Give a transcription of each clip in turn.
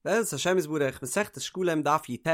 בעזרת השם יתברך, מסכת שקלים דף י"ט,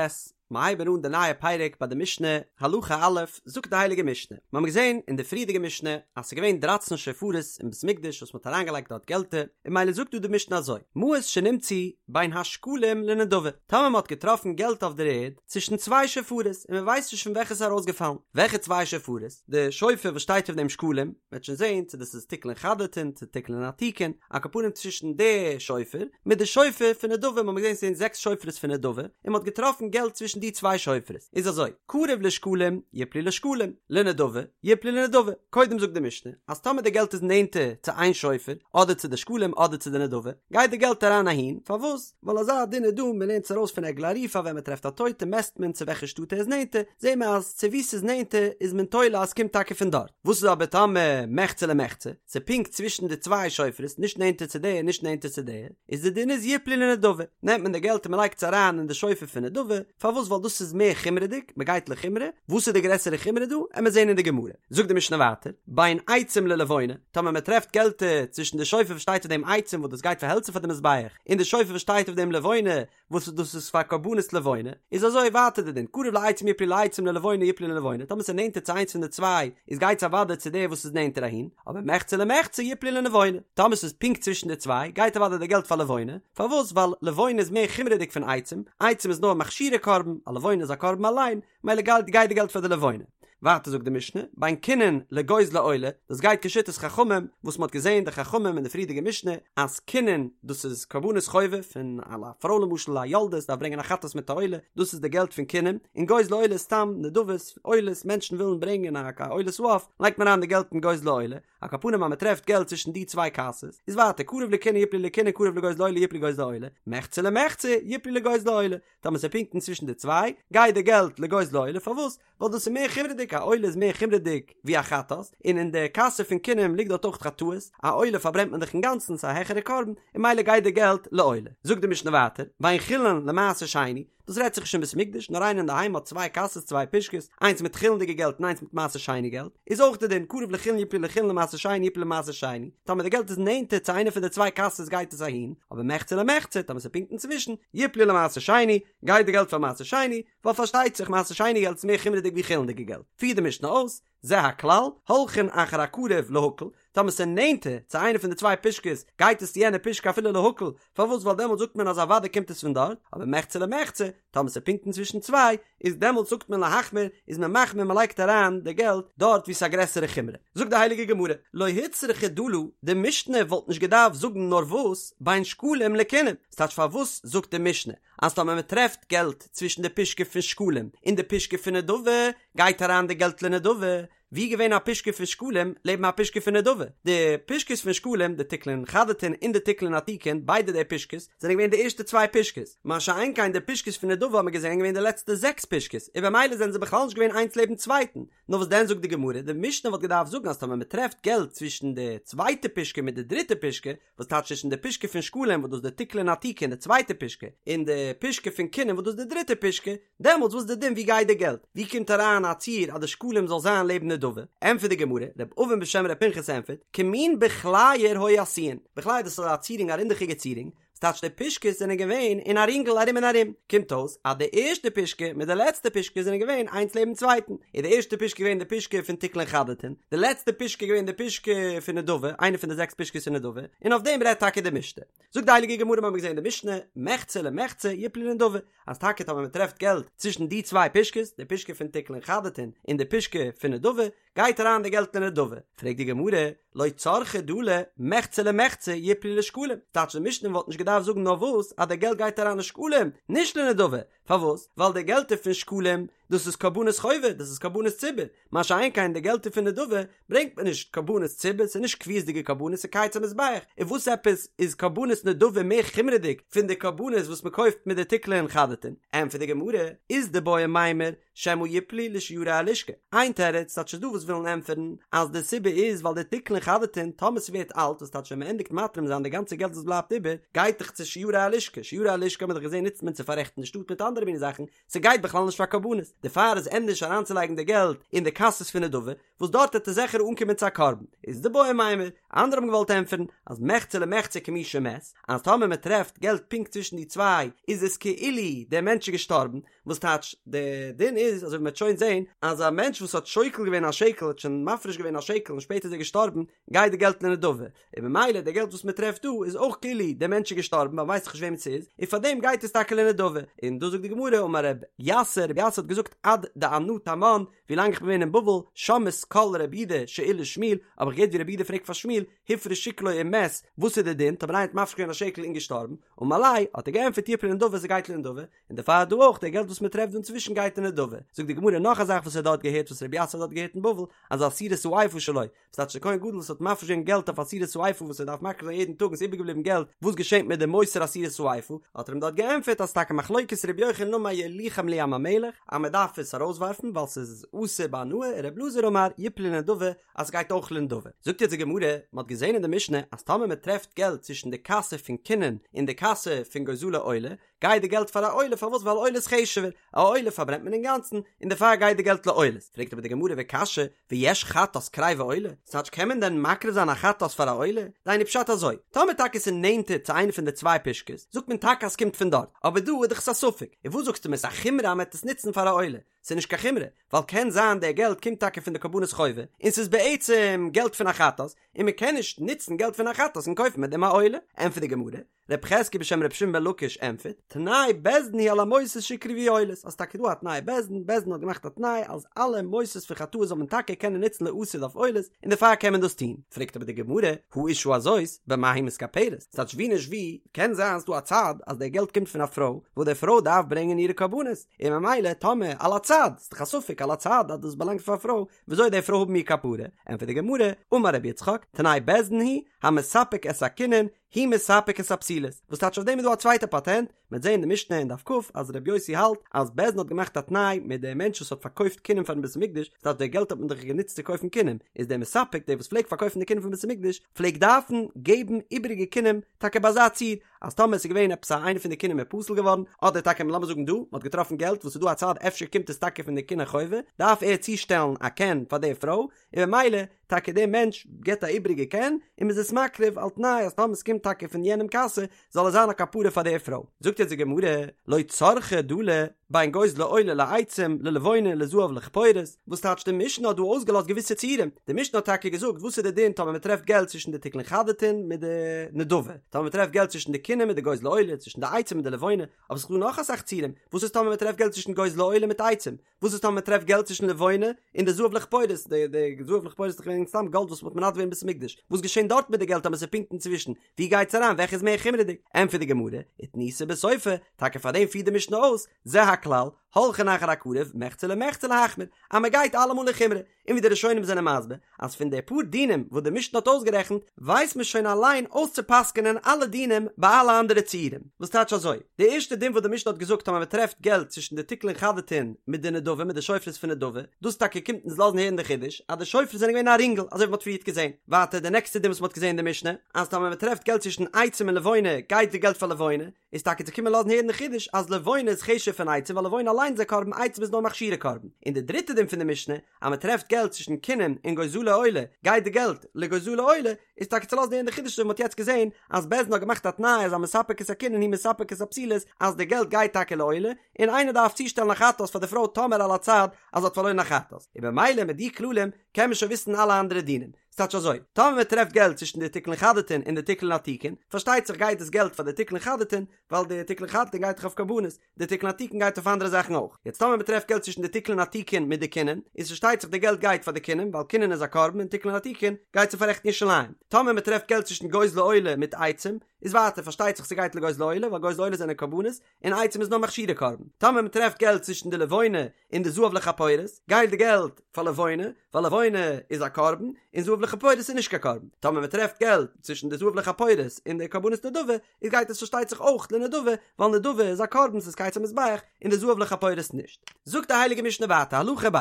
מיר הייבן אן די נייע פרק ביי די משנה, הלכה א', זאגט די הייליגע משנה, מיר האבן געזען אין די פריערדיגע משנה אז ס'איז געווען דרייצן שופרות אין בית מקדש וואס מ'האט אריינגעלייגט דארט געלטער, און ממילא זאגט דא די משנה אזוי, מעות שנמצאו בין השקלים לנדבה, טאמער מ'האט געטראפן געלט אויף דער ערד צווישן צוויי שופרות און מ'ווייסט נישט פון וועלכע ס'איז ארויסגעפאלן, וועלכע צוויי שופרות? די שופר וואס שטייט אויף דעם שקלים, מ'וועט שוין זען צו דאס איז תקלין חדתין צו תקלין עתיקין, על כל פנים צווישן די שופר מיט די שופר פון נדבה, מ'האט געזען ס'זענען זעקס שופרות פון נדבה, און מ'האט געטראפן געלט צווישן די צוויי שופרות, איז אזוי, קרוב לשקלים יפלו לשקלים, לנדבה יפלו לנדבה, קודם זאגט די משנה אז טאמער די געלט איז נענטער צו איין שופר, אדער צו די שקלים אדער צו די נדבה, גייט די געלט אריין אהין, פארוואס? ווייל אזא דין איז דא, מ'לערנט עס ארויס פון עגלה ערופה ווען מ'טרעפט א טויטע מעסט מען צו וועלכע שטאט ער איז נענטער, זעהן מיר אז צו וואו ס'איז נענטער איז מען תולה אז ס'קומט טאקע פון דארט. וואס איז אבער טאמער מחצה למחצה, ס'איז פונקט צווישן די צוויי שופרות, נישט נענטער צו די און נישט נענטער צו די, איז די דין איז יפלו לנדבה, נעמט מען די געלט און מ'לייגט עס אריין אין די שופר פון נדבה, פארוואס ווייל דאס איז מער חומרה'דיג, מ'גייט לחומרא, וואס איז די גרעסערע חומרא דא, עמיר זעהן אין די גמרא. זאגט די משנה ווייטער, בין עצים ללבונה, טאמער מ'טרעפט געלטער צווישן די שופר וואס שטייט אויף דעם עצים וואס דאס גייט פאר העלצער פאר די מזבח, און די שופר וואס שטייט אויף דעם לבונה, וואס דאס איז פאר קרבנות לבונה, איז אזוי ווייטער די דין, קרוב לעצים יפלו לעצים ללבונה יפלו ללבונה, טאמער ס'איז נענטער צו איינס פון די צוויי, איז גייט עס אוודאי צו דער וואס איז נענטער אהין, אבער מחצה למחצה יפלו ללבונה, טאמער ס'איז פונקט צווישן די צוויי, גייט אוודאי די געלט פאר לבונה, פארוואס? ווייל לבונה איז מער חומרה'דיג פון עצים, עצים איז נאר מכשירי קרבן, א לבונה איז א קרבן אליין, מילא גייט גייט די געלט פאר די לבונה. ווייטער זאגט די משנה, בין כינים לגוזלי עולה, דאס גייט כשיטת חכמים, וואס מ'האט געזען די חכמים אין די פריערדיגע משנה, אז כינים דאס איז קרבנות חובה פון א פרוי למשל א יולדת דארף ברענגען א חטאת מיט א עולה, דאס איז די געלט פון כינים, און גוזלי עולה איז סתם נדבות, עולות, מענטשן ווילן ברענגען א עולת העוף, לייגט מען אריין די געלט אין גוזלי עולה, על כל פנים אז מ'טרעפט געלט צווישן די צוויי קאסעס, איז ווייטער קרוב לכינים יפלו לכינים קרוב לגוזלי עולה יפלו לגוזלי עולה, מחצה למחצה יפלו לגוזלי עולה, טאמער ס'איז פונקט אינצווישן די צוויי, גייט די געלט לגוזלי עולה, פארוואס? ווייל דאס איז מער חומרה'דיג, א עולה איז מער חומרה'דיג ווי א חטאת, און אין די קאסע פון כינים ליגט דארט אויך חטאות, א עולה פארברענט מען דאך אינגאנצן, ס'איז א העכערע קרבן, און ממילא גייט די געלט לעולה. זאגט די משנה ווייטער, בין חולין למעשר שני, דאס רעדט זיך נישט אין בית מקדש, נאר איינער אינדערהיים האט צוויי קאסעס צוויי פושקעס, איינס מיט חולין'דיגע געלט און איינס מיט מעשר שני געלט, איז אויך די דין, קרוב לחולין יפלו לחולין למעשר שני יפלו למעשר שני, טאמער די געלט איז נענטער צו איינע פון די צוויי קאסעס גייט עס אהין, אבער מחצה למחצה, טאמער ס'איז פונקט אינצווישן, יפלו למעשר שני, גייט די געלט פאר מעשר שני, ווייל פארשטייט זיך מעשר שני געלט איז מער חומרה'דיג ווי חולין'דיגע געלט. פירט די משנה אויס, זה הכלל, הולכין אחר הקרוב להקל, טאמער ס'איז נענטער צו איינע פון די צוויי פושקעס, גייט עס צו יענע פושקע אפילו להקל, פארוואס ווייל דעמאלט זאגט מען אז אוודאי קומט עס פון דארט, אבער מחצה למחצה, טאמער ס'איז פונקט אינצווישן צוויי, איז דעמאלט זאגט מען להחמיר, איז מען מחמיר מען לייגט אריין די געלט דארט וואו ס'איז א גרעסערע חומרא. זאגט די הייליגע גמרא, לא הוצרכא דלא, די משנה וואלט נישט געדארפט זאגן נאר וואס, בין שקלים לכינים, ס'טייטש פארוואס זאגט די משנה אז טאמער מען טרעפט געלט צווישן די פושקע פון שקלים און די פושקע פון נדבה, גייט אריין די געלט לנדבה, ווי געווען א פושקע פון שקלים לעבן א פושקע פון נדבה? די פושקעס פון שקלים, די תקלין חדתין און די תקלין עתיקין, ביידע די פושקעס, זענען געווען די ערשטע צוויי פושקעס, מה שאין כן די פושקעס פון נדבה האט מען געזען געווען די לעצטע זעקס פושקעס, און במילא זענען זיי בכלל נישט געווען איינס לעבן צווייטן, נאר וואס דען זאגט די גמרא, די משנה וואלט געדארפט זאגן אז טאמער מען טרעפט געלט צווישן די צווייטע פושקע מיט די דריטע פושקע, וואס טייטש צווישן די פושקע פון שקלים וואס דאס די תקלין עתיקין די צווייטע פושקע, און די פושקע פון כינים וואס דאס די דריטע פושקע, דעמאלטס וואס איז די דין ווי גייט די געלט? ווי קומט אריין א ציור אז די שקלים זאל זיין לעבן נדבה? ענטפערט די גמרא, ר' אבין בשם ר' פנחס ענטפערט, כמין בכלייר היו עשויין, בכלייר דאס איז א צירונג א רינדעכיגע צירונג, וואס טייטש די פושקעס זענען געווען אין א רינגל ארום און ארום, קומט אויס אז די ערשטע פושקע מיט די לעצטע פושקע זענען געווען איינס לעבן צווייטן, איז די ערשטע פושקע געווען די פושקע פון תקלין חדתין, די לעצטע פושקע געווען די פושקע פון נדבה, איינע פון די זעקס פושקעס פון נדבה, און אויף דעם רעדט טאקע די משנה. זאגט די הייליגע גמרא מיר האבן געזען אין די משנה, מחצה למחצה יפלו לנדבה, אז טאקע טאמער מען טרעפט געלט צווישן די צוויי פושקעס, די פושקע פון תקלין חדתין און די פושקע פון נדבה, גייט אריין די געלט אין נדבה. פרעגט די גמרא, לא צרכא דלא מחצה למחצה יפלו לשקלים, טייטש די משנה וואלט נישט געדארפט זאגן נאר וואס אז די געלט גייט אריין לשקלים, נישט לנדבה, פארוואס? ווייל די געלטער פון שקלים דאס איז קרבנות חובה, דאס איז קרבנות ציבור, מה שאין כן די געלטער פון נדבה ברענגט מען נישט קרבנות ציבור, ס'איז נישט קביעות'דיגע קרבנות, ס'איז קיץ המזבח, און וואס עפעס איז קרבנות נדבה מער חומרה'דיג פון די קרבנות וואס מ'קויפט מיט די תקלין חדתין? ענטפערט די גמרא, אית דבעי מימר שמא יפלו לשיירי הלשכה, איין תירוץ, טייטש ס'איז דא וואס ווילן ענטפערן אז די סיבה איז ווייל די תקלין חדתין טאמער ס'ווערט אלט וואס טייטש ווען מ'ענדיגט מתרים זיין די גאנצע געלט וואס בלייבט איבער גייט דאך צו שיירי הלשכה, שיירי הלשכה האט מען דאך געזען נוצט מען צו פאררעכטן די שטאט מיט אנדערע מיני זאכן, ס'גייט בכלל נישט פאר קרבנות. דערפאר איז ענדערש אריינצולייגן די געלט אין די קאסעס פון נדבה, וואס דארט וועט עס זיכער אנקומען צו א קרבן. איז דבעי מימר, אנדערע האבן געוואלט ענטפערן, אז מחצה למחצה כמי שמת, אז טאמער מען טרעפט געלט פונקט צווישן די צוויי, איז עס כאילו דער מענטש איז געשטארבן, וואס טייטש, די דין איז, אזוי ווי מען וועט שוין זען, אז א מענטש וואס האט שוקל געווען א שקל, האט שוין מפריש געווען א שקל און שפעטער איז ער געשטארבן, גייט די געלט לנדבה, און ממילא די געלט וואס מען טרעפט דא איז אויך כאילו דער מענטש איז געשטארבן ווייל מ'ווייסט דאך נישט וועמען ס'איז, און פארדעם גייט עס טאקע לנדבה, און דא זאגט די גמרא אמר רב יסא, רב יסא האט געזאגט עד דאנא תמן, ווילאנג איך בין געווען אין בבל, שמעית קול רב יהודה שאיל לשמואל, האב איך געהערט ווי רב יהודה פרעגט פאר שמואל, הפריש שקלו ומת, וואס איז די דין, טאמער איינער האט מפריש געווען א שקל און געשטארבן, אמר ליה, האט ער געענטפערט יפלו לנדבה ס'גייט לנדבה, און דערפאר דא אויך די געלט וואס מען טרעפט דא אינצווישן גייט אין נדבה. זאגט די גמרא נאך א זאך וואס ער האט דארט געהערט וואס רבי יסא האט דארט געהערט אין בבל, אז עשירית האיפה שלו, וואס טייטש דער כהן גדול וואס האט מפריש געווען געלט אויף עשירית האיפה וואס ער דארף מקריב זיין יעדן טאג און ס'איז איבערגעבליבן געלט, וואס געשענט מיט די מותר עשירית האיפה? האט ער אים דארט געענטפערט אז טאקע מחלוקת רבי יוחנן אמר יוליכם לים המלח אז מען דארף עס ארויסווארפן ווייל ס'איז אסור בהנאה און רבי אלעזר אמר יפלו לנדבה אז ס'גייט אויך לנדבה. זאגט יעצט די גמרא, מען האט געזען אין די משנה אז טאמער מען טרעפט געלט צווישן די קאסע פון כינים און די קאסע פון גוזלי עולה, גייט די געלט פאר א עולה, פארוואס ווייל עולה איז חשוב'ער, א עולה פארברענט מען אינגאנצן, און דערפאר גייט די געלט לעולות, פרעגט אבער די גמרא וקשיא, ויש חטאת קריבה עולה, ס'טייטש קען מען דען מקריב זיין א חטאת פאר א עולה, דהיינו פשט אזוי, טאמער טאקע ס'איז נענטער צו איינע פון די צוויי פושקעס, זאגט מען טאקע אז ס'קומט פון דארט, אבער דא איז דאך עס א ספק, און וואס זאגסטו מיר ס'איז א חומרא אז מ'עט עס נוצן פאר א עולה, ס'איז נישט קיין חומרא, ווייל קען זיין די געלט קומט טאקע פון די קרבנות חובה, און ס'איז בעצם געלט פון א חטאת, און מ'קען נישט נוצן געלט פון א חטאת און קויפן מיט דעם א עולה, ענטפערט די גמרא, רב חזקיה בשם ר' שמעון בן לקיש ענטפערט, תנאי בית דין הוא על המותרות שיקרבו עולות, אז טאקע דא א תנאי בית דין, בית דין האט געמאכט א תנאי אז אלע מותרות פון חטאות זאל מען טאקע קענען נוצן לעתיד אויף עולות, און דערפאר קען מען דאס טון. פרעגט אבער די גמרא, האשה הזאת, במה היא מתכפרת? ס'טייטש ווי נישט ווי, קען זיין ס'דא א צד אז דער געלט קומט פון א פרוי, וואס די פרוי דארף ברענגען אירע קרבנות, און ממילא טאמער על הצד, ס'דאך א ספק על הצד אז דאס באלאנגט פאר א פרוי, וויאזוי די פרוי האבן איר כפרה? ענטפערט די גמרא, אמר רבי יצחק, תנאי בית דין הוא, המספק את הקינין, הוא מספק את הפסולות, וואס טייטש אויף דעם איז דא א צווייטע פאטענט, מ'וועט זעהן אין די משנה אין דף כ אז ר' יוסי האלט אז בית דין האט געמאכט א תנאי מיט דעם מענטש וואס האט פארקויפט קינים פארן בית המקדש, ס'טייטש די געלט האט מען דאך גענוצט צו קויפן קינים, איז דער מספק דער וואס פלעגט פארקויפן די קינים פון בית המקדש פלעגט דארפן געבן איבעריגע קינים טאקע ביי אזא ציור אז טאמער עס איז געווען עפעס א איינע פון די קינים איז פסול געווארן אדער טאקע לאמיר זאגן דא מ'האט געטראפן געלט וואס איז דא א צד אפשר קומט עס טאקע פון די קיני חובה דארף ער צושטעלן א קן פאר די פרוי און ממילא טאקע דער מענטש געבט א איבריגע קן און מ'איז עס מקריב על תנאי אז טאמער ס'קומט טאקע פון יענעם קאסע זאל עס זיין א כפרה פאר דער פרוי. זאגט יעצט די גמרא, לא צרכא דלי בין גוזלי עולה לעצים ללבונה לזהב לכפורת, וואס טייטש די משנה האט דא אויסגעלאזט געוויסע ציורים, די משנה האט טאקע געזאגט וואס איז די דין טאמער מ'טרעפט געלט צווישן די תקלין חדתין מיט די נדבה, טאמער מ'טרעפט געלט צווישן די קינים מיט די גוזלי עולה, צווישן די עצים מיט די לבונה, אבער ס'איז דא נאך אסאך ציורים, וואס איז טאמער מ'טרעפט געלט צווישן גוזלי עולה מיט עצים, וואס איז טאמער מען טרעפט געלט צווישן לבונה און די זהב לכפורת, די די זהב לכפורת איז דאך געווען סתם גאלד וואס מען האט מנדב געווען אין בית המקדש, וואס געשען דארט מיט די געלט טאמער ס'איז פונקט אינצווישן, ווי גייט עס אריין וועלכע איז מער חומרה'דיג? ענטפערט די גמרא, ותניתא בסיפא, טאקע פאר דעם פירט די משנה אויס, זה הכלל, הולכין אחר הקרוב, מחצה למחצה להחמיר, אז מען גייט אלעמאל אין חומרא, און ווי די ראשונים זענען מסביר אז פון די פאר דינים וואס די משנה האט אויסגערעכנט ווייסט מען שוין אליין אויסצופסק'ענען אלע דינים ביי אלע אנדערע ציורים, וואס טייטש אזוי, די ערשטע דין וואס די משנה האט געזאגט אז מען טרעפט געלט צווישן די תקלין חדתין מיט די נדבה מיט די שופרות פון נדבה, דאס טאקע קומט אונז לאזן הערן די חידוש אז די שופרות זענען געווען א רינגל אזוי ווי מען האט פריערט געזען, ווייטער די נעקסטע דין וואס מען האט געזען אין די משנה אז טאמער מען טרעפט געלט צווישן עצים און לבונה גייט די געלט פאר לבונה, איז טאקע צו קומען לאזן הערן די חידוש אז לבונה איז חשוב'ער פון עצים ווייל לבונה אליינס איז א קרבן עצים איז נאר מכשירי קרבן, און די דריטע דין פון די משנה אז מען טרעפט געלט צווישן קינים און גוזלי עולה גייט די געלט לגוזלי עולה איז טאקע צו לאזן הערן די חידוש ווי מען האט יעצט געזען אז בית דין האט געמאכט א תנאי אז המספק את הקינין הוא מספק את הפסולות אז די געלט גייט טאקע לעולה און איינער דארף צושטעלן א חטאת פאר די פרוי טאמער על הצד אז זי האט פארלוירן א חטאת און במילא מיט די כללים קען מען שוין וויסן אלע אנדערע דינים. ס'טייטש אזוי, טאמער מען טרעפט געלט צווישן די תקלין חדתין און די תקלין עתיקין, פארשטייט זיך גייט דאס געלט פאר די תקלין חדתין, ווייל די תקלין חדתין גייט דאך אויף קרבנות, די תקלין עתיקין גייט אויף אנדערע זאכן אויך. יעצט טאמער מען טרעפט געלט צווישן די תקלין עתיקין מיט די קינין, איז פארשטייט זיך די געלט גייט פאר די קינין, ווייל קינין איז א קרבן און תקלין עתיקין גייט צו פאררעכטן ירושלים. טאמער מען טרעפט געלט צווישן גוזלי עולה מיט עצים, איז ווייטער פארשטייט זיך ס'גייט לגוזלי עולה, ווייל גוזלי עולה זענען קרבנות, און עצים איז נאר מכשירי קרבן. טאמער מען טרעפט געלט צווישן די לבונה און די זהב לכפורת, גייט די געלט פאר לבונה, ווייל לבונה איז א קרבן, און זהב לכפורת איז נישט קיין קרבן. טאמער מען טרעפט געלט צווישן די זהב לכפורת און די קרבנות נדבה, איז גייט עס פארשטייט זיך אויך לנדבה, ווייל נדבה איז א קרבן ס'איז קיץ המזבח, און די זהב לכפורת נישט. זאגט די הייליגע משנה ווייטער, הלכה ב'.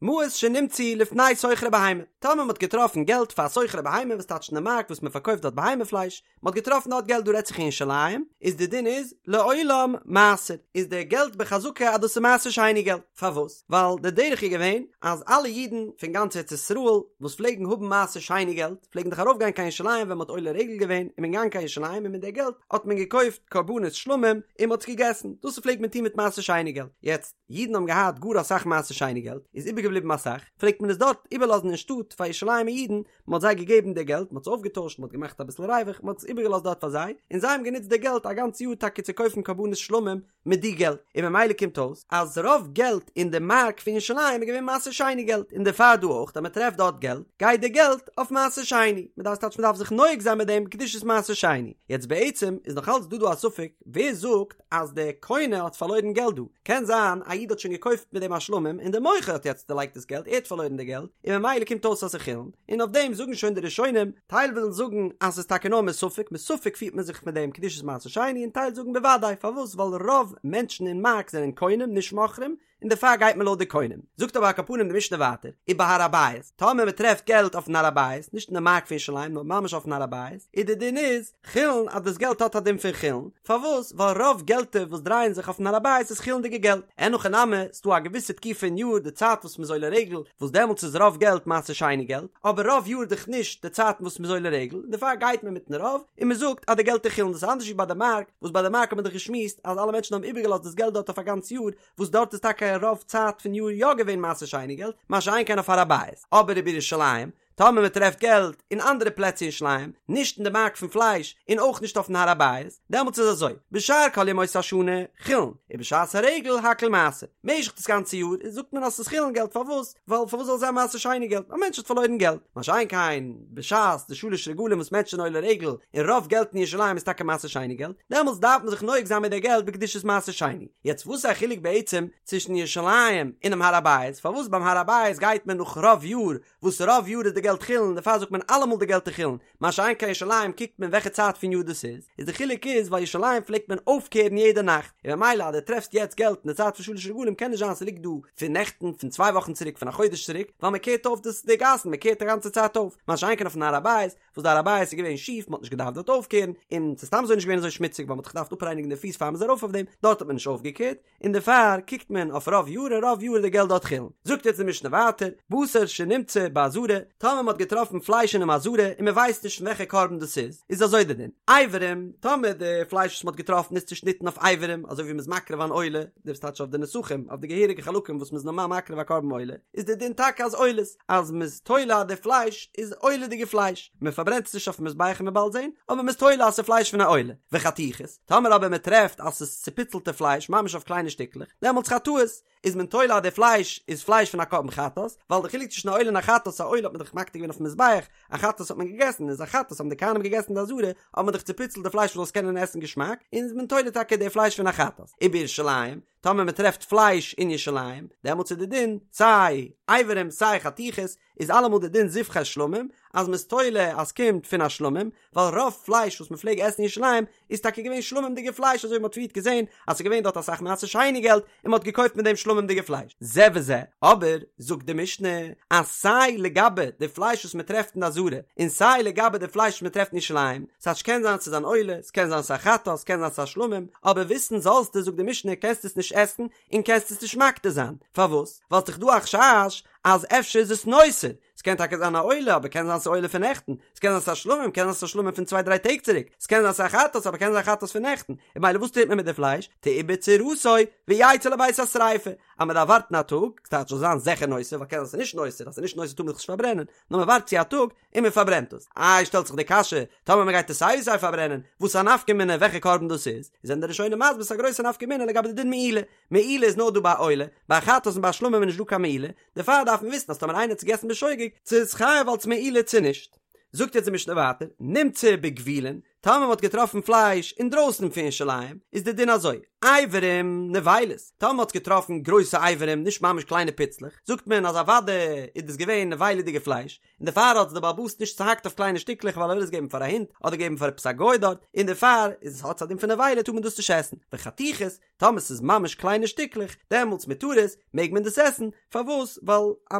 מעות שנמצאו לפני סוחרי בהמה, טאמער מען האט געטראפן געלט פאר סוחרי בהמה וואס טייטש אין די מארק וואס מען פארקויפט דארט בהמה פלייש, מען האט געטראפן דארט געלט דא רעדט זיך אין ירושלים, איז די דין איז לעולם מעשר, איז די געלט בחזקה אז דאס איז מעשר שני געלט, פארוואס? ווייל די דרך איז געווען אז אלע אידן פון גאנץ ארץ ישראל וואס פלעגן האבן מעשר שני געלט פלעגן דאך ארויף גיין קיין ירושלים ווען מען האט עולה רגל געווען און מען געגאנגען קיין ירושלים און מיט די געלט האט מען געקויפט קרבנות שלמים און מען האט עס געגעסן, דאס פלעגט מען טון מיט מעשר שני געלט, יעצט אידן האבן געהאט גאר אסאך מעשר שני געלט, איז איבערגעבליבן אסאך, פלעגט מען עס דארט איבערלאזן אין שטאט פאר ירושלימ'ער אידן, מען האט זיי געגעבן די געלט, מען האט עס אויפגעטוישט, מען האט געמאכט אביסל ריווח, מען האט עס איבערגעלאזט דארט פאר זיי, און זיי האבן גענוצט די געלט א גאנץ יאר טאקע צו קויפן קרבנות שלמים מיט די געלט, און ממילא קומט אויס אז רוב געלט אין די מארק פון ירושלים איז געווען מעשר שני געלט, און דערפאר דא אויך אז מען טרעפט דארט געלט, גייט די געלט אויף מעשר שני, מען דארף טייטש מען דארף זיך נוהג זיין מיט דעם קדושת מעשר שני, יעצט בעצם איז נאך אלץ דא דא א ספק ווער זאגט אז דער קונה האט פארלוירן געלט דא, קען זיין א איד האט שוין געקויפט מיט דעם א שלמים און דער מוכר האט יעצט דערלייגט דאס געלט, ער האט פארלוירן די געלט, און ממילא קומט אויס אז ס'איז חולין, און אויף דעם זאגן שוין די ראשונים, טייל ווילן זאגן אז ס'איז טאקע נאר מספק, מספק פירט מען זיך מיט דעם קדושת מעשר שני, און טייל זאגן בוודאי, פארוואס? ווייל רוב מענטשן אין מארק זענען קונים נישט מוכרים, און דערפאר גייט מען לויט די קונים. זאגט אבער על כל פנים די משנה ווייטער, ובהר הבית, טאמער מען טרעפט געלט אויפן הר הבית, נישט אין די מארק פון ירושלים נאר ממש אויפן הר הבית, איז די דין איז, חולין אז דאס געלט האט א דין פון חולין, פארוואס? ווייל רוב געלטער וואס דרייען זיך אויפן הר הבית איז חולין'דיגע געלט, אין הכי נמי, ס'דא א געוויסע תקופה אין יאר די צייט וואס מ'איז עולה רגל, וואס דעמאלטס איז רוב געלט מעשר שני געלט, אבער רוב יאר דאך נישט די צייטן וואס מ'איז עולה רגל, און דערפאר גייט מען מיטן רוב, און מ'זאגט אז די געלט איז חולין, דאס איז אנדערש ווי ביי די מארק, וואס ביי די מארק האט מען דאך געשמועסט אז אלע מענטשן האבן איבערגעלאזט דאס געלט דארט אויף א גאנץ יאר, וואס דארט איז טאקע רוב צייט פון יאר יא געווען מעשר שני געלט, מה שאין כן אויף הר הבית, אבער ובירושלים, טאמער מען טרעפט געלט אין אנדערע פלעצער אין ירושלים, נישט אין די מארק פון פלייש, און אויך נישט אויפן הר הבית, דעמאלטס איז אזוי, בשאר כל ימות השנה, חולין, ובשעת הרגל הכל מעשר. משך דאס גאנצע יאר זאגט מען אז ס'איז חולין געלט, פארוואס? ווייל פארוואס זאל זיין מעשר שני געלט? א מענטש האט פארלוירן געלט. מה שאין כן בשעת די שלש רגלים וואס מענטשן זענען עולה רגל, און רוב געלט אין ירושלים איז טאקע מעשר שני געלט, דעמאלטס דארף מען זיך נוהג זיין מיט די געלט בקדושת מעשר שני. יעצט וואס איז א חילוק בעצם צווישן ירושלים אונעם הר הבית? פארוואס ביים הר הבית גייט מען נאך רוב יאר וואס רוב יאר איז די געלט חולין דערפאר זאגט מען אלעמאל די געלט איז חולין, מה שאין כן ירושלים קוקט מען וועלכע צייט פון יאר דאס איז, איז די חילוק איז ווייל ירושלים פלעגט מען אויפקערן יעדע נאכט, און ממילא אז דו טרעפסט יעצט געלט אין די צייט פון שלש רגלים קען נישט זיין ס'ליגט דא פון נעכטן פון צוויי וואכן צוריק פון א חודש צוריק, ווייל מען קערט אויף דאס די גאסן מען קערט די גאנצע צייט אויף, מה שאין כן אויפן הר הבית וואס די הר הבית איז געווען שיף מען האט נישט געדארפט דארט אויפקערן, און ס'איז סתם אזוי נישט געווען אזוי שמוציג ווייל מען האט זיך געדארפט אפרייניגן די פיס פאר מען איז ארויף אויף דעם, דארט האט מען נישט אויפגעקערט, און דערפאר קוקט מען אויף רוב יאר און רוב יאר איז די געלט דארט חולין. זאגט יעצט די משנה ווייטער, בשר שנמצא בעזרה, טאמער מען האט געטראפן פלייש אינעם עזרה און מען ווייסט נישט פון וועלכע קרבן דאס איז, איז אזוי די דין, אברים, טאמער די פלייש וואס מען האט געטראפן איז צושניטן אויף אברים, אזוי ווי מען איז מקריב אן עולה, דאס טייטש אויף די נסכים, אויף די געהעריגע חלקים וואס מען איז נארמאל מקריב א קרבן עולה, איז די דין טאקע אז עולות, אז מען איז תולה אז די פלייש איז עולה'דיגע פלייש, מען פארברענט עס נישט אויפן מזבח ווי מ'וועט באלד זען, אבער מען איז תולה אז ס'איז פלייש פון א עולה, וחתיכות. טאמער אבער מען טרעפט אז ס'איז צופיצלטע פלייש ממש אויף קליינע שטיקלעך, דעמאלטס חטאות, איז מען תולה אז די פלייש איז פלייש פון א קרבן חטאת, ווייל די חילוק צווישן א עולה און א חטאת, א עולה האט מען דאך מקטיר געווען אויפן מזבח, א חטאת האט מען געגעסן, איז א חטאת האבן די כהנים געגעסן אין די עזרה, האט מען דאך צופיצלט די פלייש מ'זאל עס קענען עסן געשמאק, און איז מען תולה טאקע די פלייש פון א חטאת. ובירושלים, טאמער מען טרעפט פלייש אין ירושלים, דעמאלטס איז די דין, סיי אברים סיי חתיכות, איז אלעמאל די דין זבחי שלמים, אז מ'איז תולה אז ס'קומט פון א שלמים, ווייל רוב פלייש וואס מ'פלעג עסן אין ירושלים איז טאקע געווען שלמים'דיגע פלייש אזוי ווי מ'האט פריערט געזען אז ס'איז געווען דארט אסאך מעשר שני געלט און מ'האט געקויפט מיט דעם שלמים'דיגע פלייש. זה וזה, אבער זאגט די משנה אז סיי לגבי די פלייש וואס מ'טרעפט אין די עזרה און סיי לגבי די פלייש וואס מ'טרעפט אין ירושלים, ס'טייטש קען זיין ס'איז אן עולה, ס'קען זיין ס'איז א חטאת, ס'קען זיין ס'איז א שלמים, אבער וויסן זאלסטו זאגט די משנה קענסט עס נישט עסן און קענסט עס נישט מקטיר זיין, פארוואס? ווייל ס'דאך דא א חשש אז אפשר איז עס נותר, ס'קען טאקע זיין א עולה, אבער קען זיין ס'איז עולה פון נעכטן, ס'קען זיין ס'איז א שלמים, קען זיין ס'איז א שלמים פון צוויי דריי טעג צוריק, ס'קען זיין ס'איז א חטאת, אבער קען זיין חטאת פון נעכטן, און ממילא וואס טוט מען מיט די פלייש? תעובר צורתו ויצא לבית השריפה, אז מ'דארף ווארטן א טאג, ס'טייטש זאל זיין זיכער נותר, ווייל קען זיין ס'איז נישט נותר, אז ס'איז נישט נותר טאר מען דאך נישט פארברענען, נאר מ'ווארט צו א טאג און מ'פארברענט עס. איי שטעלט זיך די קשיא, טאמער מ'גייט עס סיי ווי סיי פארברענען, וואס איז א נפקא מינה וועלכע קרבן דאס איז? זענען די ראשונים מסביר ס'איז א גרויסע נפקא מינה לגבי די דין מעילה, מעילה איז נאר דא ביי עולה, ביי חטאת און ביי שלמים איז נישט דא קיין מעילה, דערפאר דארף מען וויסן אז טאמער איינער האט עס געגעסן בשוגג, צו איז חייב אלס מעילה צו נישט. זאגט יעצט די משנה ווייטער, נמצא בגבולין, טאמער מען האט געטראפן פלייש אינדרויסן פון ירושלים, איז די דין אזוי, אברים נבילות, טאמער מען האט געטראפן גרויסע אברים, נישט ממש קליינע פיצלעך, זאגט מען אז אוודאי איז דאס געווען נבילה'דיגע פלייש, און דערפאר האט עס דער בעל הבית נישט צוהאקט אויף קליינע שטיקלעך ווייל ער וויל עס געבן פאר א הונט אדער געבן פאר עפעס א גוי דארט, און דערפאר איז עס האט עס א דין פון נבילה טאר מען דאס נישט עסן, וחתיכות, טאמער ס'איז ממש קליינע שטיקלעך, דעמאלטס מותרות, מעג מען דאס עסן, פארוואס? ווייל א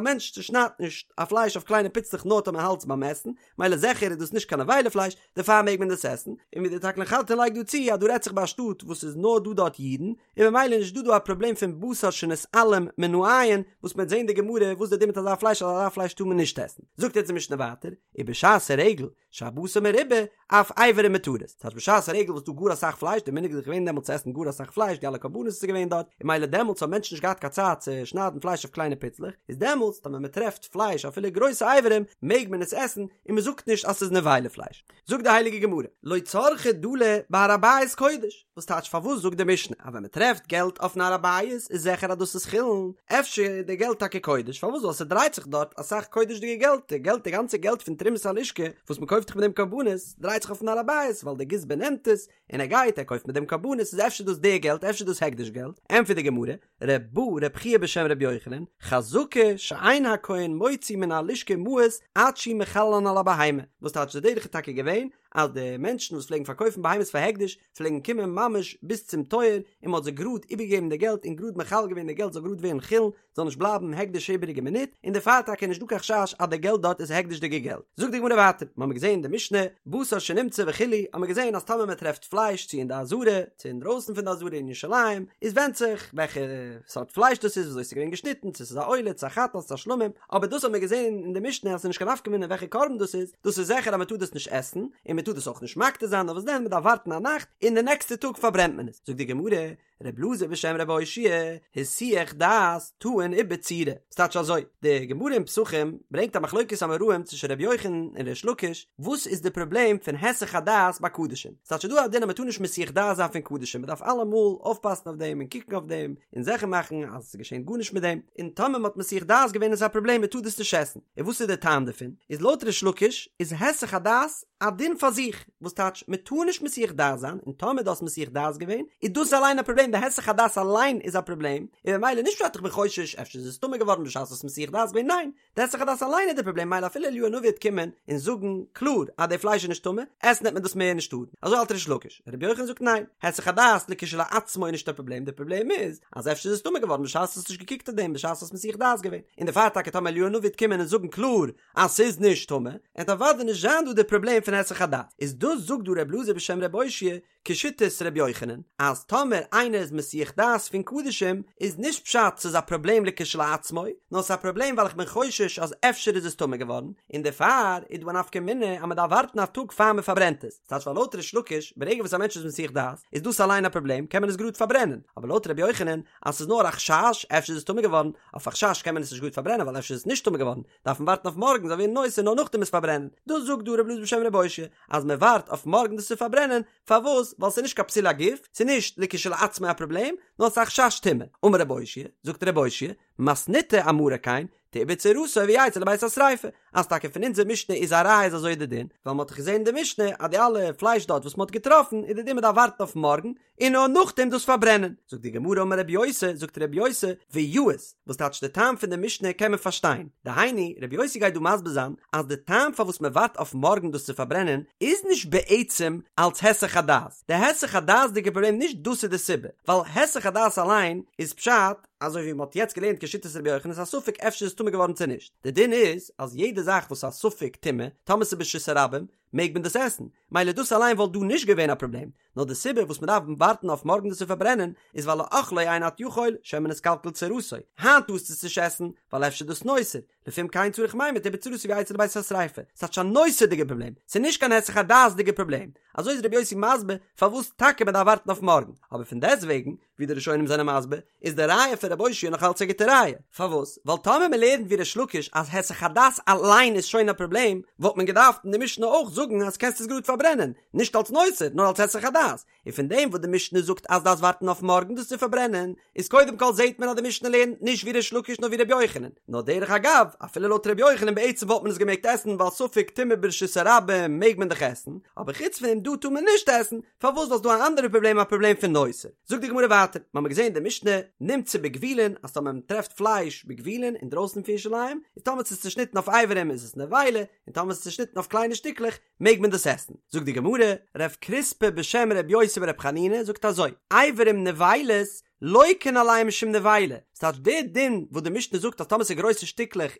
מענטש צושניידט נישט א פלייש אויף קליינע פיצלעך נאר טאמער האלט עס ביים עסן, מילא זיכער איז דאס נישט קיין נבילה פלייש, דערפאר מעג מען דאס עסן, און ווי דער תקלין חדתין לייגט דא צו אז דא רעדט זיך ביי א שטאט וואס איז נאר דא דארט אידן, און ממילא איז נישט דא דא א פראבלעם פון בשר שנתעלם מן העין, וואס מ'וועט זען די גמרא וואס די דין מיט אזא פלייש אז אזא פלייש טאר מען נישט עסן. זאגט יעצט די משנה ווייטער, ובשעת הרגל, שהבשר מרובה, אף אברים מותרות. ס'הייסט בשעת הרגל וואס דא גאר אסאך פלייש, די מנהג איז דאך געווען דעמאלטס צו עסן גאר אסאך פלייש, די אלע קרבנות וואס איז געווען דארט, און מילא דעמאלטס האבן מענטשן נישט געהאט קיין צייט צו שניידן פלייש אויף קליינע פיצלעך, איז דעמאלטס טאמער מ'טרעפט פלייש אפילו גרויסע אברים, מעג מען עס עסן, און מ'זאגט נישט אז ס'איז נבילה פלייש. זאגט די הייליגע גמרא, לא צרכא דלי בהר הבית קודש, וואס טייטש פארוואס זאגט די משנה אז ווען מען טרעפט געלט אויפן הר הבית איז זיכער אז דאס איז חולין, אפשר איז די געלט טאקע קודש, פארוואס ווייל ס'דרייט זיך דארט אסאך קודש'דיגע געלט, די געלט די גאנצע געלט פון תרומת הלשכה וואס מען קויפט זיך מיט דעם קרבנות דרייט זיך אויפן הר הבית ווייל די גזבר נעמט עס און ער גייט ער קויפט מיט דעם קרבנות איז אפשר דאס די געלט אפשר דאס הקדש געלט, ענטפערט די גמרא, ר' בא ר' חייא בשם ר' יוחנן, חזקה שאין הכהן מוציא מן הלשכה מעות עד שהוא מחללן על הבהמה, וואס טייטש די דרך איז טאקע געווען אז די מענטשן וואס פלעגן פארקויפן בהמות פאר הקדש פלעגן קומען ממש ביז צום טויער און מען האט זיי גראד איבערגעגעבן די געלט און גראד מחלל געווען די געלט זאל גראד ווערן חולין זאל נישט בלייבן הקדש איבעריגע מינוט און דערפאר טאקע איז נישט דא קיין חשש אז די געלט דארט איז הקדש'דיגע געלט. זאגט די גמרא ווייטער, מ'האמיר געזען אין די משנה, בשר שנמצא וכו', האמיר געזען אז טאמער מען טרעפט פלייש צו אין די עזרה, צו אינדרויסן פון די עזרה אין ירושלים, איז ווענדט זיך וועלכע סארט פלייש דאס איז, וויאזוי ס'איז געווען געשניטן, צו ס'איז א עולה, צו א חטאת, צו א שלמים, אבער דאס האט מען געזען אין די משנה אז ס'איז נישט קיין נפקא מינה וועלכע קרבן דאס איז, דאס איז זיכער אז מ'טאר דאס נישט עסן, און מ'טאר דאס אויך נישט מקטיר זיין, נאר וואס דען מ'דארף ווארטן א נאכט, און די נעקסטע טאג פארברענט מען עס. זאגט די גמרא, ר' אלעזר בשם ר' אושעיא, היסח דעת טעון עיבור צורה. ס'טייטש אזוי, די גמרא אין פסחים ברענגט א מחלוקת אמוראים צווישן ר' יוחנן און ריש לקיש, וואס איז די פראבלעם פון היסח הדעת ביי קדשים? ס'טייטש ס'איז דא א דין אז מ'טאר נישט מסיח דעת זיין פון קדשים, מ'דארף אלעמאל אויפפאסן אויף דעם און קוקן אויף דעם און זיכער מאכן אז ס'געשענט גארנישט מיט דעם, און טאמער מ'האט מסיח דעת געווען איז א פראבלעם מ'טאר דאס נישט עסן. און וואס איז די טעם דערפון? איז לויט ריש לקיש איז היסח הדעת א דין פאר זיך, וואס טייטש מ'טאר נישט מסיח דעת זיין, און טאמער דו האסט מסיח דעת געווען איז דאס אליין א פראבלעם, די היסח הדעת אליין איז א פראבלעם, און ממילא נישט פשט איך בין חושש אפשר איז עס טמא געווארן בשעת האסט מסיח דעת געווען, ניין, די היסח הדעת אליין איז די פראבלעם מילא אפילו אליהו הנביא וועט קומען און זאגן קלאר אז די פלייש איז נישט טמא, עסן וועט מען דאס מער נישט טארן, אזוי האלט ריש לקיש, רבי יוחנן זאגט ניין, היסח הדעת לכשלעצמו איז נישט א פראבלעם, די פראבלעם איז אז אפשר איז עס טמא געווארן בשעת האסט נישט געקוקט אויף דעם בשעת האסט מסיח דעת געווען, און דערפאר טאקע טאמער אליהו הנביא וועט קומען און זאגן קלאר אז ס'איז נישט טמא, עט אוודאי נישט זיין דא די פראבלעם פון היסח הדעת, איז דאס זאגט דא ר' אלעזר בשם ר' אושעיא כשיטת ר' יוחנן, אז טאמער איינער איז מסיח דעת פון קדשים איז נישט פשט ס'איז א פראבלעם לכשלעצמו, נאר ס'איז א פראבלעם ווייל איך בין חושש אז אפשר איז עס טמא געווארן, און דערפאר איז דא א נפקא מינה אז מ'דארף ווארטן א טאג פאר מ'פארברענט עס, ס'טייטש ווייל לויט ריש לקיש ברגע וואס א מענטש איז מסיח דעת איז דאס אליין א פראבלעם קען מען עס גראד פארברענען, אבער לויט ר' יוחנן אז ס'איז נאר א חשש אפשר איז עס טמא געווארן, אויף א חשש קען מען עס נישט גראד פארברענען ווייל אפשר איז עס נישט טמא געווארן, דארף מען ווארטן אויף מארגן זאל ווערן נותר נאר נאכדעם עס פארברענען, דאס זאגט דא ר' אלעזר בשם ר' אושעיא אז מען ווארט אויף מארגן דאס צו פארברענען, פארוואס? ווייל ס'איז נישט קיין פסול הגוף, ס'איז נישט לכשלעצמו א פראבלעם, נאר ס'איז א חשש טומאה. אמר ר' אושעיא, זאגט ר' אושעיא, מתניתא אמרה כן, תעובר צורתו ויצא לבית השריפה, אז טאקע פון אונזער משנה איז א ראיה אז אזוי איז די דין, ווייל מ'האט דאך געזען אין די משנה אז די אלע פלייש דארט וואס מ'האט געטראפן איז די דין מ'דארף ווארטן אויף מארגן, און נאר נאכדעם דאס פארברענען. זאגט די גמרא אמר רבי יוסי, זאגט רבי יוסי, ויאות, וואס טייטש די טעם פון די משנה קען מען פארשטיין, דהיינו, רבי יוסי גייט דא מסביר זיין אז די טעם פארוואס מען ווארט אויף מארגן דאס צו פארברענען איז נישט בעצם אלץ היסח הדעת, די היסח הדעת'דיגע פראבלעם נישט דאס איז די סיבה, ווייל היסח הדעת אליין איז פשט, אזוי ווי מען האט יעצט געלערנט כשיטת רבי יוחנן איז א ספק אפשר איז טמא געווארן צו נישט, די דין איז אז יעדע זאך וואס איז א ספק טומאה, טאמער ס'איז ברשות הרבים, מעג מען דאס עסן, מילא דאס אליין וואלט דא נישט געווען א פראבלעם, נאר די סיבה וואס מען דארף ווארטן אויף מארגן דאס צו פארברענען איז ווייל לאכלו אין אתה יכול שמא נתקלקל צורתו, היינט טארסטו עס נישט עסן ווייל אפשר איז דאס נותר, לפום כן צריך מימר תעובר צורתו ויצא לבית השריפה, ס'טייטש א נותר'דיגע פראבלעם, ס'איז נישט קיין היסח הדעת'דיגע פראבלעם, אזוי איז רבי יוסי מסביר פארוואס טאקע מען דארף ווארטן אויף מארגן, אבער פון דעסטוועגן ווי די ראשונים זענען מסביר, איז די ראיה פון רבי אושעיא נאך אלץ א גוטע ראיה. פארוואס? ווייל טאמער מען לערנט ווי ריש לקיש אז היסח הדעת אליין איז שוין א פראבלעם, וואלט מען געדארפט אין די משנה אויך זאגן. זאגן אז קענסט עס גראד פארברענען, נישט אלס נותר, נאר אלס היסח הדעת, און פון דעם וואס די משנה זאגט אז דארפסט ווארטן אויף מארגן דאס צו פארברענען, איז קודם כל זעהט מען אז די משנה לערנט נישט ווי ריש לקיש נאר ווי ר' יוחנן, נאר דרך אגב, אפילו לויט ר' יוחנן בעצם וואלט מען עס געמעגט עסן ווייל ספק טומאה ברשות הרבים מעג מען דאך עסן, אבער חוץ פון דעם דא טאר מען נישט עסן, פארוואס ווייל ס'דא א אנדערע פראבלעם א פראבלעם פון נותר. זאגט די גמרא ווייטער, מ'האמיר געזעהן די משנה, נמצא בגבולין, אז טאמער מ'טרעפט פלייש בגבולין אינדרויסן פון ירושלים, איז טאמער ס'איז צושניטן אויף אברים איז עס נבילה, און טאמער ס'איז צושניטן אויף קליינע שטיקלעך מעג מען דאס עסן. זאגט די גמרא, רב קריספא בשם ר' יוסי בר' חנינא זאגט אזוי, אברים נבילות לוקין עליהן משום נבילה, ס'טייטש די דין וואס די משנה זאגט אז טאמער ס'איז גרויסע שטיקלעך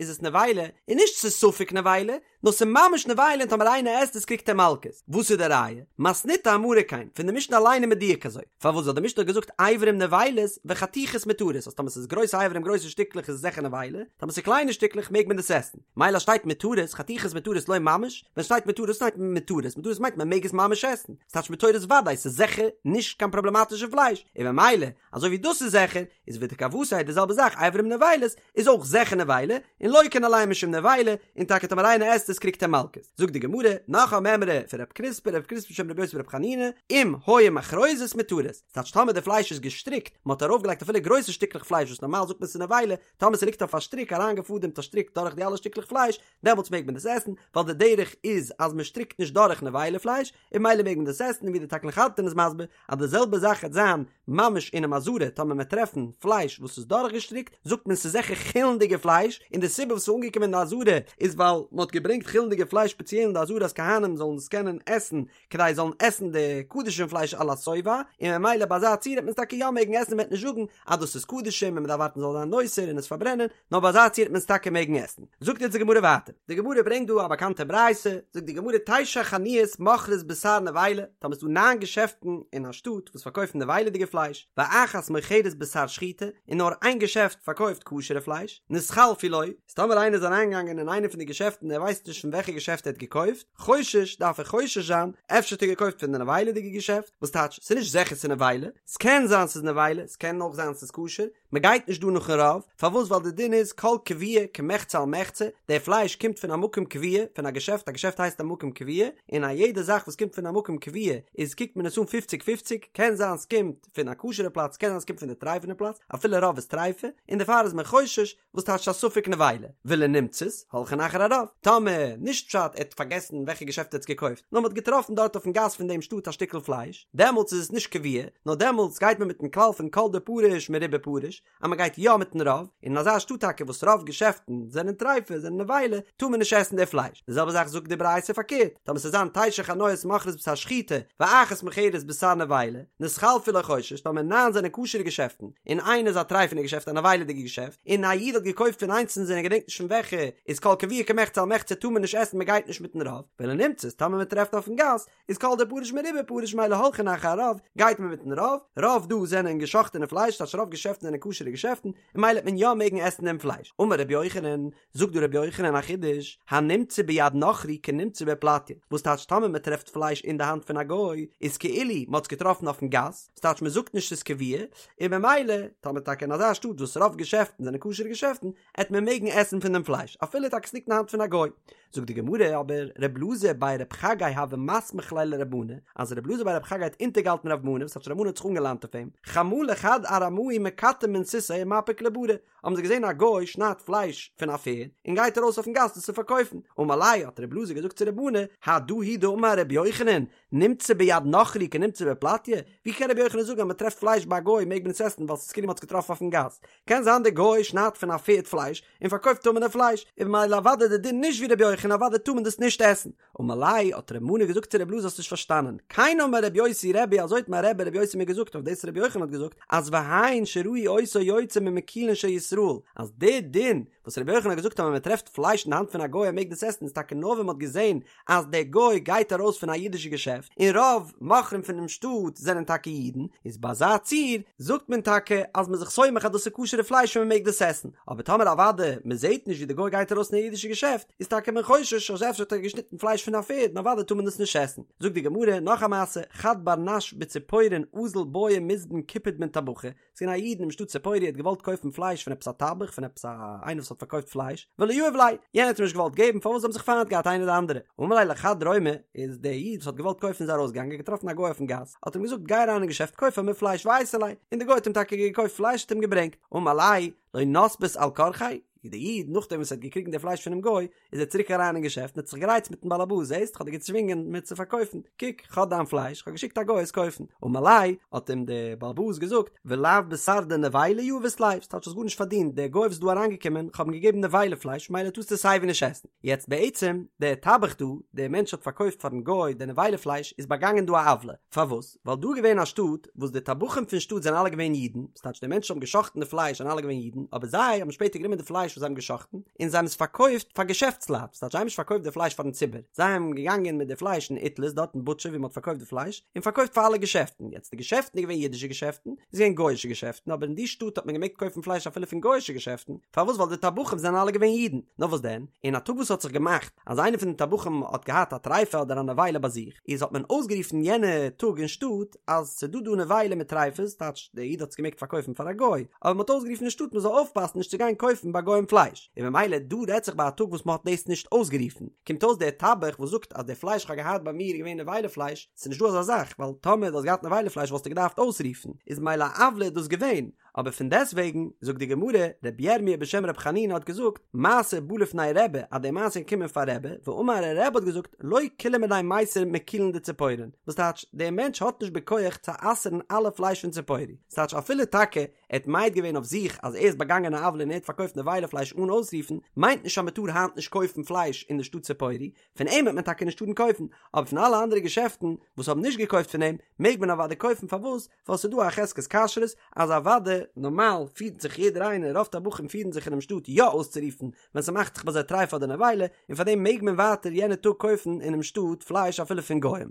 איז עס נבילה, איז נישט ס'איז ספק נבילה, נאר ס'איז ממש נבילה און טאמער איינער עסט עס קריגט ער מלקות. וואס איז די ראיה? מתניתא אמרה כן, פון די משנה אליין איז מדויק אזוי. פארוואס ווייל די משנה האט געזאגט אברים נבילות וחתיכות מותרות אז טאמער ס'איז גרויסע אברים גרויסע שטיקלעך איז עס זיכער נבילה, טאמער ס'איז קליינע שטיקלעך מעג מען דאס עסן. מילא אז שטייט מותרות, חתיכות מותרות לא ממש, ווען שטייט מותרות שטייט מותרות, מותרות מיינט מען מעג עס ממש עסן, ס'טייטש מותרות ודאי, ס'איז זיכער נישט קיין פראבלעמאטישע פלייש, און ממילא אזוי ווי דאס איז זיכער, איז ודכוותיה די זעלבע זאך אברים נבילות איז אויך זיכער נבילה, און לוקין עליהן משום נבילה, און טאקע טאמער איינער עסט עס קריגט ער מלקות. זאגט די גמרא, נאך א מימרא פון רב קריספא, רב קריספא בשם רבי יוסי ברבי חנינא, אם היו מחרוזות מותרות, ס'טייטש טאמער די פלייש איז געשטריקט, מ'האט ארויפגעלייגט אפילו גרויסע שטיקלעך פלייש וואס נארמאל זאגט מען ס'איז נבילה, טאמער ס'ליגט אויף א שטריק אריינגעפאדעמט א שטריק דורך די אלע שטיקלעך פלייש, דעמאלטס מעג מען דאס עסן, ווייל די דרך איז אז מען שטריקט נישט דורך נבילה פלייש, און ממילא מעג מען דאס עסן, און ווי די תקלין חדתין איז מסביר, אז די זעלבע זאך וועט זיין ממש אינעם עזרה, טאמער מ'עט טרעפן פלייש וואס איז דורכגעשטריקט, זאגט מען ס'איז זיכער חולין'דיגע פלייש, און די סיבה וואס ס'איז אנגעקומען אין די עזרה איז ווייל מ'האט געברענגט חולין'דיגע פלייש ספעציעל אין די עזרה אז כהנים זאלן עס קענען עסן כדי זאלן עסן די קדשים פלייש על השובע, און ממילא ביי אזא ציור וועט מען עס טאקע יא מעגן עסן מ'וועט נישט זאגן אז דאס איז קדשים און מ'דארף ווארטן ס'זאל זיין נותר און עס פארברענען, נאר ביי אזא ציור וועט מען עס טאקע מעגן עסן. זאגט יעצט די גמרא ווייטער, די גמרא ברענגט דא א באקאנטע ברייתא, זאגט די גמרא תשע חנויות מוכרות בשר נבילה, טאמער ס'דא ניין געשעפטן אין א שטאט וואס פארקויפן נבילה'דיגע פלייש, ואחת מוכרת בשר שחוטה, און נאר איין געשעפט פארקויפט כשר'ע פלייש, נתחלפו לו, איז טאמער איינער איז אריינגעגאנגען אין איינע פון די געשעפטן און ער ווייסט נישט פון וועלכע געשעפט ער האט געקויפט, חושש, דארף ער חושש זיין, אפשר האט ער געקויפט פון די נבילה'דיגע געשעפט, וואס טייטש, ס'איז נישט זיכער ס'איז נבילה, ס'קען זיין ס'איז נבילה, ס'קען אויך זיין ס'איז כשר, מ'גייט נישט דא נאכן רוב, פארוואס ווייל די דין איז כל קבוע כמחצה על מחצה, די פלייש קומט פון א מקום קבוע, פון א געשעפט, א געשעפט הייסט א מקום קבוע, און א יעדע זאך וואס קומט פון א מקום קבוע איז קוקט מען עס אן פופציג פופציג, קען זיין ס'קומט פון א כשר'ע פלאץ, קען זיין ס'קומט פון די טרייפענע פלאץ, אפילו רוב איז טרייפה, און דערפאר איז מען חושש, וואס טייטש א ספק נבילה? ולנמצאת, הולכין אחר הרוב. טאמער, נישט פשט ער האט פארגעסן וועלכע געשעפט ער האט עס געקויפט, נאר מען האט געטראפן דארט אויפן גאס פון דעם שטאט א שטיקל פלייש, דעמאלטס איז עס נישט קבוע, נאר דעמאלטס גייט מען מיטן כלל פון כל דפריש מרובא פריש, אז מען גייט יא מיטן רוב, און אין אזא שטאט טאקע וואס רוב געשעפטן זענען טרייפה, זענען נבילה, טאר מען נישט עסן די פלייש. די זעלבע זאך זאגט די ברייתא פארקערט, טאמער ס'זאל זיין תשע חנויות מוכרות בשר שחוטה, ואחת מוכרת בשר נבילה, נתחלפו לו חושש, טאמער ניין זענען כשר'ע געשעפטן, און איינע איז א טרייפענע געשעפט א נבילה'דיגע געשעפט, און א איד האט געקויפט פון איינס פון זיי און ער געדענקט נישט פון וועלכע, איז כל קבוע כמחצה על מחצה טאר מען נישט עסן מען גייט נישט מיטן רוב, ולנמצאת טאמער מען טרעפט אויפן גאס, איז כל דפריש מרובא פריש ממילא הולכין אחר הרוב, גייט מען מיטן רוב, רוב דא זענען געשאכטענע פלייש טייטש רוב געשעפטן זענען כשר'ע געשעפטן, און ממילא וועט מען יא מעגן עסן דעם פלייש. אמר רבי יוחנן, זאגט דא רבי יוחנן א חידוש, הנמצא ביד נכרי כנמצא בפלטיא, וואס טייטש טאמער מען טרעפט פלייש אין די האנט פון א גוי, איז כאילו מען האט עס געטראפן אויפן גאס, וואס טייטש מען זאגט נישט ס'איז קבוע, און ממילא טאמער טאקע אין אזא שטאט וואס רוב געשעפטן זענען כשר'ע געשעפטן, עט מען מעגן עסן פון דעם פלייש, אפילו טאקע ס'ליגט אין די האנט פון א גוי. זאגט די גמרא אבער ר' אלעזר בי רב חגי הוה מסמיך ליה לרב מנא, אז ר' אלעזר בי רב חגי האט אונטערגעהאלטן רב מנא, וואס טייטש רב מנא האט זיך אנגעליינט אויף אים, חמא לחד ארמאי מקטע מן סוסיא ומפיק לברא, האבן זיי געזען א גוי שניידט פלייש פון א פערד און גייט ארויס אויפן גאס דאס צו פארקויפן, אמר ליה האט ר' אלעזר געזאגט צו רב מנא, הדא הוא דאמר ר' יוחנן, נמצא ביד נכרי כנמצא בפלטיא, ווי קען ר' יוחנן זאגן אז מען טרעפט פלייש ביי א גוי מעג מען עס עסן ווייל ס'איז כאילו מען האט עס געטראפן אויפן גאס, קען זיין דער גוי שניידט פון א פערד פלייש און פארקויפט טמא'נע פלייש, איז ממילא אוודאי די דין נישט ווי ר' יוחנן אוודאי טאר מען דאס נישט עסן. אמר ליה, האט ר' מנא געזאגט צו ר' אלעזר האסט נישט פארשטאנען, כן אמר ר' יוסי רבי אזוי האט מיין רבי ר' יוסי מיר געזאגט אויף דאס ר' יוחנן האט געזאגט אז והן שראו אותו יוצא ממקולין של ישראל אז די דין וואס ר' יוחנן האט געזאגט אז ווען מען טרעפט פלייש אין די האנט פון א גוי ער מעג דאס עסן איז טאקע נאר ווען מען האט געזען אז דער גוי גייט ארויס פון א אידישע געשעפט און רוב מוכרים פונעם שטאט זענען טאקע אידן איז ביי אזא ציור. זאגט מען טאקע אז מ'איז זיך סומך אז דאס איז כשר'ע פלייש און מ'מעג דאס עסן, אבער טאמער אוודאי מ'זעט נישט ווי די גוי גייט ארויס אין א אידישע געשעפט, איז טאקע מען חושש אז אפשר האט ער געשניטן פלייש פון א פערד און אוודאי טאר מען דאס נישט עסן. זאגט די גמרא נאך א מעשה, חד בר נש בציפורין אזל בעי מזבן קיפוד מן טבחא, ס'איז געווען א איד אינעם שטאט ציפורי האט געוואלט קויפן פלייש פון עפעס א טבח פון עפעס א איינער וואס האט פארקויפט פלייש, ולא יהב ליה, יענער האט אים נישט געוואלט געבן פארוואס זיי האבן זיך פיינט געהאט איינער די אנדערע, אמר ליה לחד רומי, איז דער איד וואס האט געוואלט קויפן איז ארויסגעגאנגען געטראפן א גוי אויפן גאס, האט אים געזאגט גיי אריין אין געשעפט קויף פאר מיר פלייש ואייתי ליה, און דער גוי האט אים טאקע געקויפט פלייש האט אים געברענגט, אמר ליה, לא נסבית על כרחיה, דער איד נאכדעם וואס ער האט געקריגן די פלייש פונעם גוי, איז ער צוריק אריין אין געשעפט און האט זיך גערייצט מיטן באלעבאס, זעסט, כ'האב דיר געצווינגען מיר צו פארקויפן, קוק, כ'האב דיין פלייש, כ'האב געשיקט א גוי עס קויפן. אמר ליה, האט אים דער באלעבאס געזאגט, ולאו בשר דנבילה יהבית ליה, ס'טייטש האסט גארנישט פארדינט, דער גוי וואס איז דא אריינגעקומען, כ'האב אים געגעבן נבילה פלייש, מילא טארסטו עס סייווי נישט עסן. יעצט בעצם, דער טבח דא, דער מענטש האט פארקויפט פארן גוי די נבילה פלייש, איז באגאנגען דא א עוולה. פארוואס? ווייל דא איז געווען א שטאט וואס די טבחים פון שטאט זענען אלע געווען אידן, ס'טייטש די מענטשן האבן גע'שחט'ן די פלייש זענען אלע געווען אידן, אבער זיי האבן שפעטער גענומען די פלייש וואס זיי האבן גע'שחט'ן און זיי האבן עס פארקויפט פאר געשעפטסלייט, ס'טייטש זיי האבן נישט פארקויפט די פלייש פארן ציבור, זיי האבן געגאנגען מיט די פלייש אין איטליז דארט אין בוטשער ווי מ'האט פארקויפט די פלייש, און פארקויפט פאר אלע געשעפטן, יעצט די געשעפטן איז געווען אידישע געשעפטן, איז געווען גוי'אישע געשעפטן, אבער אין די שטאט האט מען געמעגט קויפן פלייש אפילו פון גוי'אישע געשעפטן, פארוואס ווייל די טבחים זענען אלע געווען אידן, נאר וואס דען, אין א טאג וואס האט זיך געמאכט אז איינער פון די טבחים האט געהאט א טריפה אדער א נבילה ביי זיך, איז האט מען אויסגערופן יענע טאג אין שטאט אז ס'דא דא נבילה מיט טריפות, טייטש דער איד האט עס געמעגט פארקויפן פאר א גוי, אבער מ'האט אויסגערופן אין שטאט מ'זאל אויפפאסן נישט צו גיין קויפן ביי גוים פלייש, און ממילא דא רעדט זיך ביי א טאג וואס מ'האט דאס נישט אויסגערופן, קומט אויס דער טבח וואס זאגט אז די פלייש כ'האב געהאט ביי מיר איז געווען נבילה פלייש, ס'איז נישט דא אזא זאך, ווייל טאמער דו האסט געהאט נבילה פלייש וואלסטו געדארפט אויסרופן, איז ממילא א עוולה איז דאס געווען, אבער פון דעסטוועגן, זאגט די גמרא, רבי ירמיה בשם רבי חנינא האט געזאגט, מעשה בא לפני רבי, אז די מעשה איז געקומען פאר רבי, ואמר רבי האט געזאגט, לא כולהו מינייהו מיסר מכולין דציפורין, וואס טייטש, דער מענטש האט נישט בכח צו אסר'ן אלע פלייש פון ציפורי, ס'טייטש אפילו טאקע ער האט מעיד געווען אויף זיך אז ער איז באגאנגען א עוולה און ער האט פארקויפט נבילה פלייש אן אויסרופן, מיינט נישט אז מ'טאר היינט נישט קויפן פלייש אין די שטאט ציפורי, פון אים וועט מען טאקע נישט טארן קויפן, אבער פון אלע אנדערע געשעפטן וואס האבן נישט געקויפט פון אים, מעג מען אוודאי קויפן, פארוואס? ווייל ס'איז דא א חזקת כשרות אז אוודאי נארמאל פירט זיך יעדער איינער, רוב טבחים פירן זיך אינעם שטאט יא אויסצורופן ווען ס'מאכט זיך ביי זיי טריפה אדער נבילה, און פארדעם מעג מען ווייטער יענע טאג קויפן אינעם שטאט פלייש אפילו פון גוים.